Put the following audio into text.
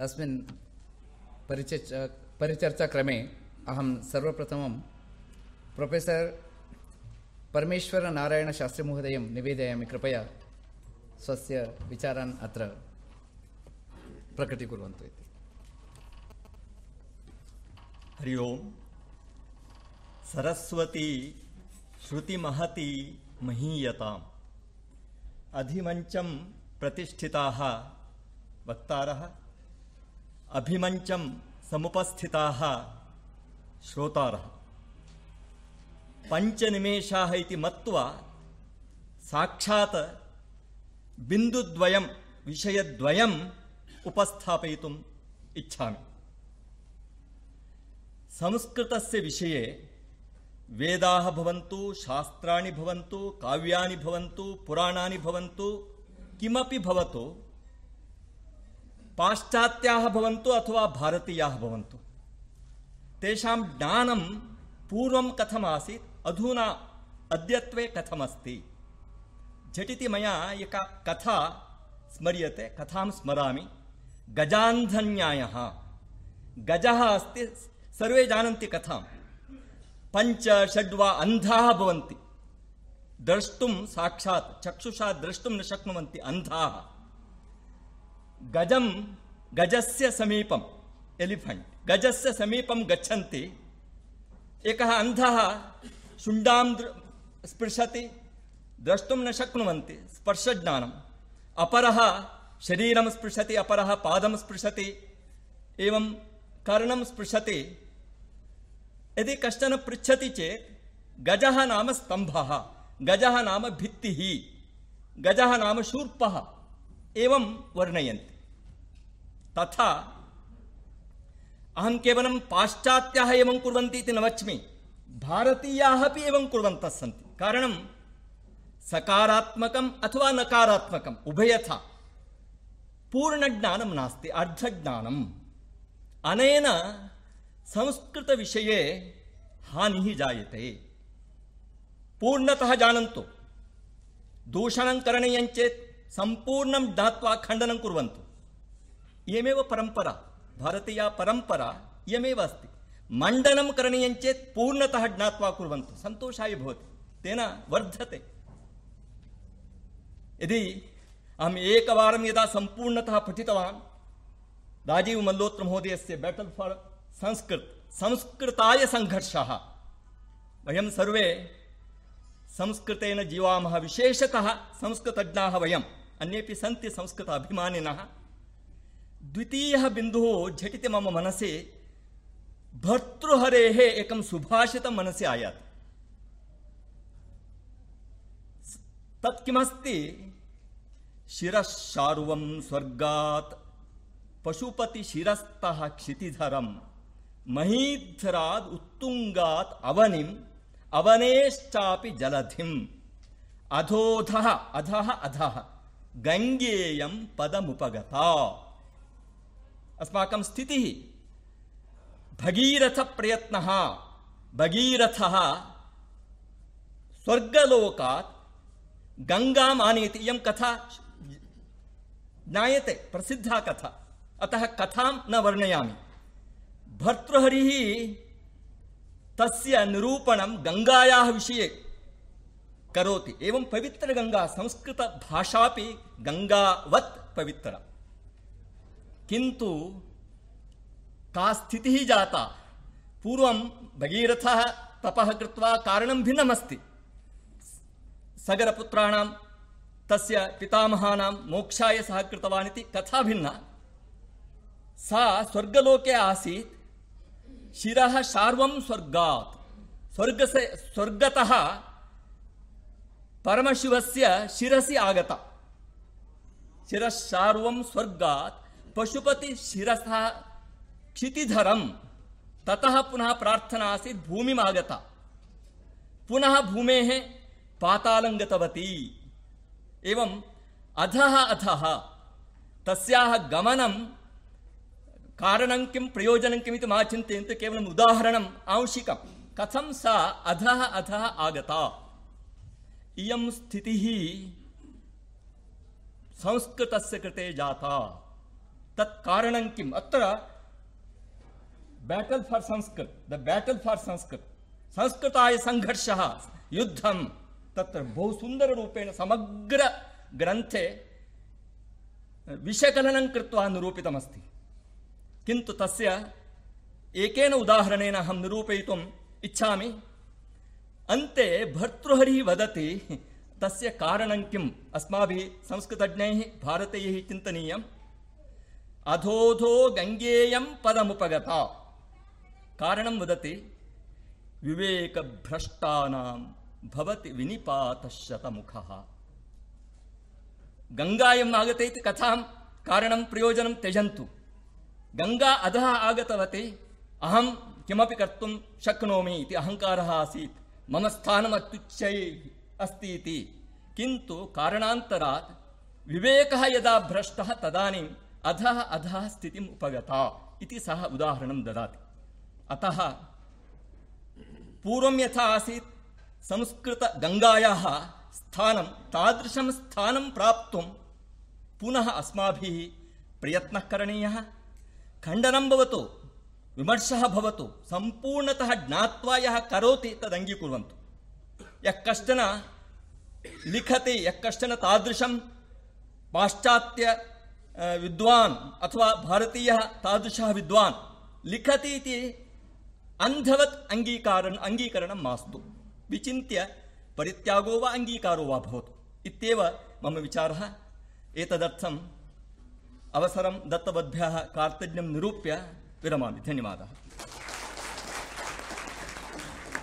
अस्मिन् परिचर्चाक्रमे अहं सर्वप्रथमं प्रोफेसर् परमेश्वरनारायणशास्त्रीमहोदयं निवेदयामि, कृपया स्वस्य विचारान् अत्र प्रकटीकुर्वन्तु इति। हरि ओम्। सरस्वती श्रुतिमहती महीयताम्। अधिमञ्चं प्रतिष्ठिताः वक्तारः, अभिमञ्चं समुपस्थिताः श्रोतारः, पञ्चनिमेषाः इति मत्वा साक्षात् बिन्दुद्वयं विषयद्वयम् उपस्थापयितुम् इच्छामि। संस्कृतस्य विषये वेदाः भवन्तु, शास्त्राणि भवन्तु, काव्यानि भवन्तु, पुराणानि भवन्तु, किमपि भवतु, पाश्चात्याः भवन्तु अथवा भारतीयाः भवन्तु, तेषां ज्ञानं पूर्वं कथमासीत्, अधुना अद्यत्वे कथमस्ति। झटिति मया एका कथा स्मर्यते, कथां स्मरामि। गजान्धन्यायः। गजः अस्ति, सर्वे जानन्ति कथां। पञ्च षड्वा अन्धाः भवन्ति, द्रष्टुं साक्षात् चक्षुषा द्रष्टुं न शक्नुवन्ति अन्धाः। गजस्य समीपम्, एलिफेण्ट् गजस्य समीपं गच्छन्ति। एकः अन्धः शुण्डां स्पृशति, द्रष्टुं न शक्नुवन्ति, स्पर्शज्ञानम्। अपरः शरीरं स्पृशति, अपरः पादं स्पृशति, एवं कर्णं स्पृशति। यदि कश्चन पृच्छति चेत् गजः नाम स्तम्भः, गजः नाम भित्तिः, गजः नाम शूर्पः, एवं वर्णयन्ति। तथा अहं केवलं पाश्चात्याः एवं कुर्वन्ति इति न वच्मि, भारतीयाः अपि एवं कुर्वन्तः सन्ति। कारणं सकारात्मकम् अथवा नकारात्मकम् उभयथा पूर्णज्ञानं नास्ति, अर्धज्ञानम्। अनेन संस्कृतविषये हानिः जायते। पूर्णतः जानन्तु, दूषणं करणीयं चेत् सम्पूर्णं ज्ञात्वा खण्डनं कुर्वन्तु। इयमेव परम्परा, भारतीया परम्परा इयमेव अस्ति। मण्डनं करणीयं चेत् पूर्णतः ज्ञात्वा कुर्वन्तु, सन्तोषाय भवति, तेन वर्धते। यदि अहम् एकवारं यदा सम्पूर्णतः पठितवान्, राजीव मल्होत्रा महोदयस्य बैटल फॉर संस्कृताय संघर्षः, वयं सर्वे संस्कृतेन जीवामः, विशेषतः संस्कृतज्ञाः वयम्, अन्येपि सन्ति संस्कृत अभिमानिनः। द्वितीयः बिन्दुः झटिति मम मनसि भर्तृहरेः एकं सुभाषितं मनसि आयाति। तत् किमस्ति? शिरश्शार्वं स्वर्गात् पशुपतिशिरस्तः क्षितिधरं महीधराद् उत्तुङ्गात् अवनिम् अवनेश्चापि जलधिम् अधोधः अधः अधः गङ्गेयं पदमुपगता। अस्माकं स्थितिः भगीरथप्रयत्नः। भगीरथः स्वर्गलोकात् गङ्गाम् आनयति। इयं कथा ज्ञायते, प्रसिद्धा कथा, अतः कथां न वर्णयामि। भर्तृहरिः तस्य निरूपणं गङ्गायाः विषये करोति। एवं पवित्रगङ्गा, संस्कृतभाषापि गङ्गावत् पवित्रा। किन्तु का स्थितिः जाता? पूर्वं भगीरथः तपः कृत्वा कारणं भिन्नमस्ति। सगरपुत्राणां तस्य पितामहानां मोक्षाय सः कृतवान् इति कथा भिन्ना। सा स्वर्गलोके आसीत्। शिरः शार्वं स्वर्गात्, स्वर्गतः परमशिवस्य शिरसि आगता। शिरः शार्वं स्वर्गात् पशुपतिशिरसः क्षितिधरं। ततः पुनः प्रार्थना आसीत्, भूमिम् आगता, पुनः भूमेः पातालं गतवती। एवं अधः अधः तस्याः गमनं कारणं किं, प्रयोजनं किम् इति मा चिन्तयन्तु, केवलम् उदाहरणम् आंशिकं। कथं सा अधः अधः आगता। इयं स्थितिः संस्कृतस्य कृते जाता। तत् कारणं किम्? अत्र battle for Sanskrit, the battle for Sanskrit, संस्कृताय संघर्षः, युद्धं, तत्र बहु सुन्दररूपेण समग्र ग्रन्थे विषयकलनं कृत्वा निरूपितमस्ति। किन्तु तस्य एकेन उदाहरणेन अहं निरूपयितुम् इच्छामि। अन्ते भर्तृहरिः वदति तस्य कारणं किम्? अस्माभिः संस्कृतज्ञैः भारतीयैः चिन्तनीयम्। अधोधो गङ्गेयं पदमुपगता, कारणं वदति विवेकभ्रष्टानां भवति विनिपातशतमुखः। गङ्गायाम् आगते इति कथां कारणं प्रयोजनं त्यजन्तु। गङ्गा अधः आगतवती, अहं किमपि कर्तुं शक्नोमि इति अहङ्कारः आसीत्, मम स्थानम् अत्युच्चैः अस्ति इति। किन्तु कारणान्तरात् विवेकः यदा भ्रष्टः तदानीम् अधः अधः स्थितिम् उपगता इति सः उदाहरणं ददाति। अतः पूर्वं यथा आसीत् संस्कृतगङ्गायाः स्थानं, तादृशं स्थानं प्राप्तुं पुनः अस्माभिः प्रयत्नः करणीयः। खण्डनं भवतु, विमर्शः भवतु, सम्पूर्णतः ज्ञात्वा यः करोति तदङ्गीकुर्वन्तु। यः कश्चन लिखति, यः कश्चन तादृशं पाश्चात्य विद्वान् अथवा भारतीयः तादृशः विद्वान् लिखति इति अन्धवत् अङ्गीकरणं मास्तु। विचिन्त्य परित्यागो वा अङ्गीकारो वा भवतु इत्येव मम विचारः। एतदर्थम् अवसरं दत्तवद्भ्यः कार्तज्ञं निरूप्य विरमामि। धन्यवादः।